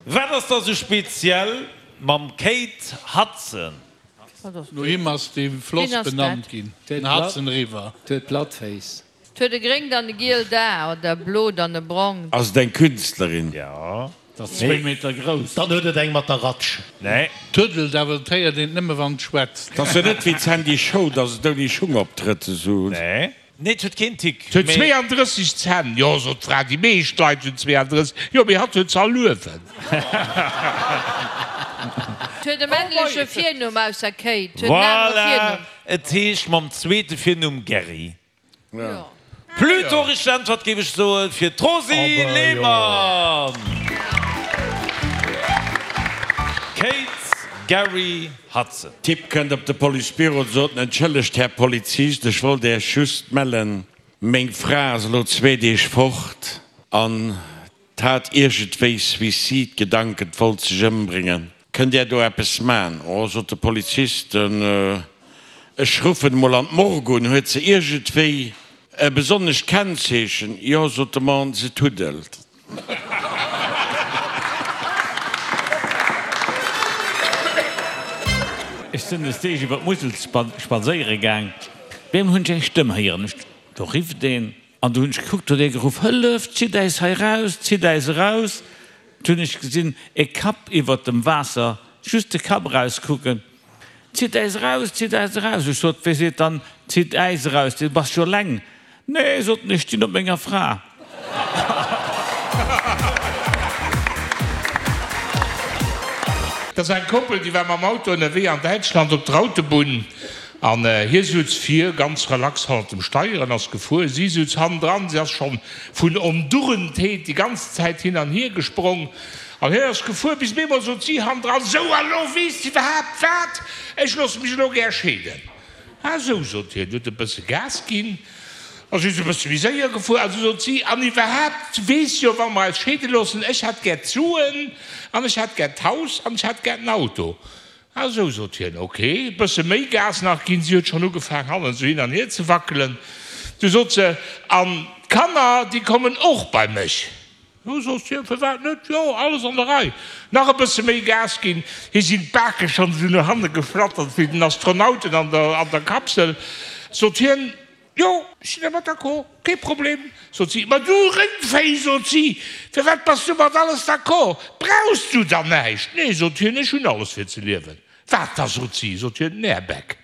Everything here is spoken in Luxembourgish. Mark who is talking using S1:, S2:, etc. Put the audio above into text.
S1: Wat ass da sou speziell mam Kate Hudson?
S2: No him ass dee Floss benannt ginn, den Hudson River.
S3: Huet platt Féiss.
S4: 't huet e gréngt an e gielt A, oder e blot an e brongt.
S5: Ass et eng Künstlerin?
S1: Jo.
S2: 't ass zwéi Meter grouss.
S6: Dann huet et eng mat der Ratsch.
S1: Nee.
S2: Tuddelt, awer et héiert een et nëmme wann et schwätzt.
S5: 't ass jo net wéi d'Sandy Show, dass et ouni Schung optrëtt esou.
S1: Nee. Nee, 't huet keen Tick,
S7: 't huet
S1: mee.
S7: 32 Zänn. Jo, sot d'Fra, déi meescht Leit hunn 32. Jo, mee hatt huet se all uewen.
S4: 't huet e männleche Virnumm ausser Kate. 't huet en anere
S1: Voilà!
S4: Virnumm.
S1: Et heescht mam zweete Virnumm Gerry. Plutôt richteg Äntwert géif ech soen fir d'Rosy Lehmann. Kate Gerry Hudson.
S5: Typ kënnt op de Policebüro, sot en, Entschëllegt Här Polizist, ech wollt Äech just mellen, meng Fra ass elo zwee Deeg fort an 't hat iergendwéi Suicide-Gedanken, 't wollt sech ëmbréngen. Kënnt Där do eppes man? Oh, sot de Polizist, ech ruffen emol an d'Morgue un. Huet se iergendwéi e besonnescht Kennzeechen? Jo, sot de Mann, se tuddelt.
S8: Ech sinn des Deeg iwwer d'Musel spadséiere gaang. Op eemol hunn ech eng Stëmm héieren. Ech, do rifft een. An du hunn ech gekuckt, huet ee geruff, Hëllef, zitt äis hei raus, zitt äis eraus! Du hunn ech gesinn, e Kapp iwwert dem Waasser, just de Kapp erauskucken, Zitt äis eraus, zitt äis eraus! Ech sot, Wee seet dann, zitt äis eraus, du bass jo eleng? Nee, sot en, ech stinn op menger Fra.
S7: Dat ass eng Koppel, déi war mam Auto ënnerwee an Däitschland op der Autobunn. An hie sutz vir, ganz relax hannert dem Steier an ass gefuer. Si sutz hannendran, si ass schonn vun Ondurentheet déi ganz Zäit hin an hier gesprong. An hien ass gefuer, bis op eemol sot si hannendran, Sou, a lo weess de iwwerhaapt wat? Ech loosse mech elo gär scheeden. Ah sou, sot hien, huet e bësse Gas ginn a si ass e bësse méi séier gefuer. A sou sot si, An iwwerhaapt, weess jo, wa mer eis scheede loossen, ech hätt gär d'Suen an ech hätt gär d'Haus an ech hätt gär den Auto. Ah sou, sot hien, ok, e bësse méi Gas nach ginn. Si huet schonn ugefaang, hannen esou hin an hier ze wackelen. Du sot se, An d'Kanner, déi kommen och bei mech. Jo, sot hien, firwat net, jo, alles an der Rei. Nach e bësse méi Gas ginn. Hir sinn d'Bake schonn esou no hanne geflattert wéi den Astronauten an der an der Kapsel. Sot hien, Jo, ech sinn dermat d'accord, kee Problem, sot si. Ma du Réngvéi, sot si, firwat bass du mat alles d'accord? Brauchs du dann näischt? Nee, sot hien, ech hunn alles fir ze liewen. Wat da, sot si, sot hien, den Airbag.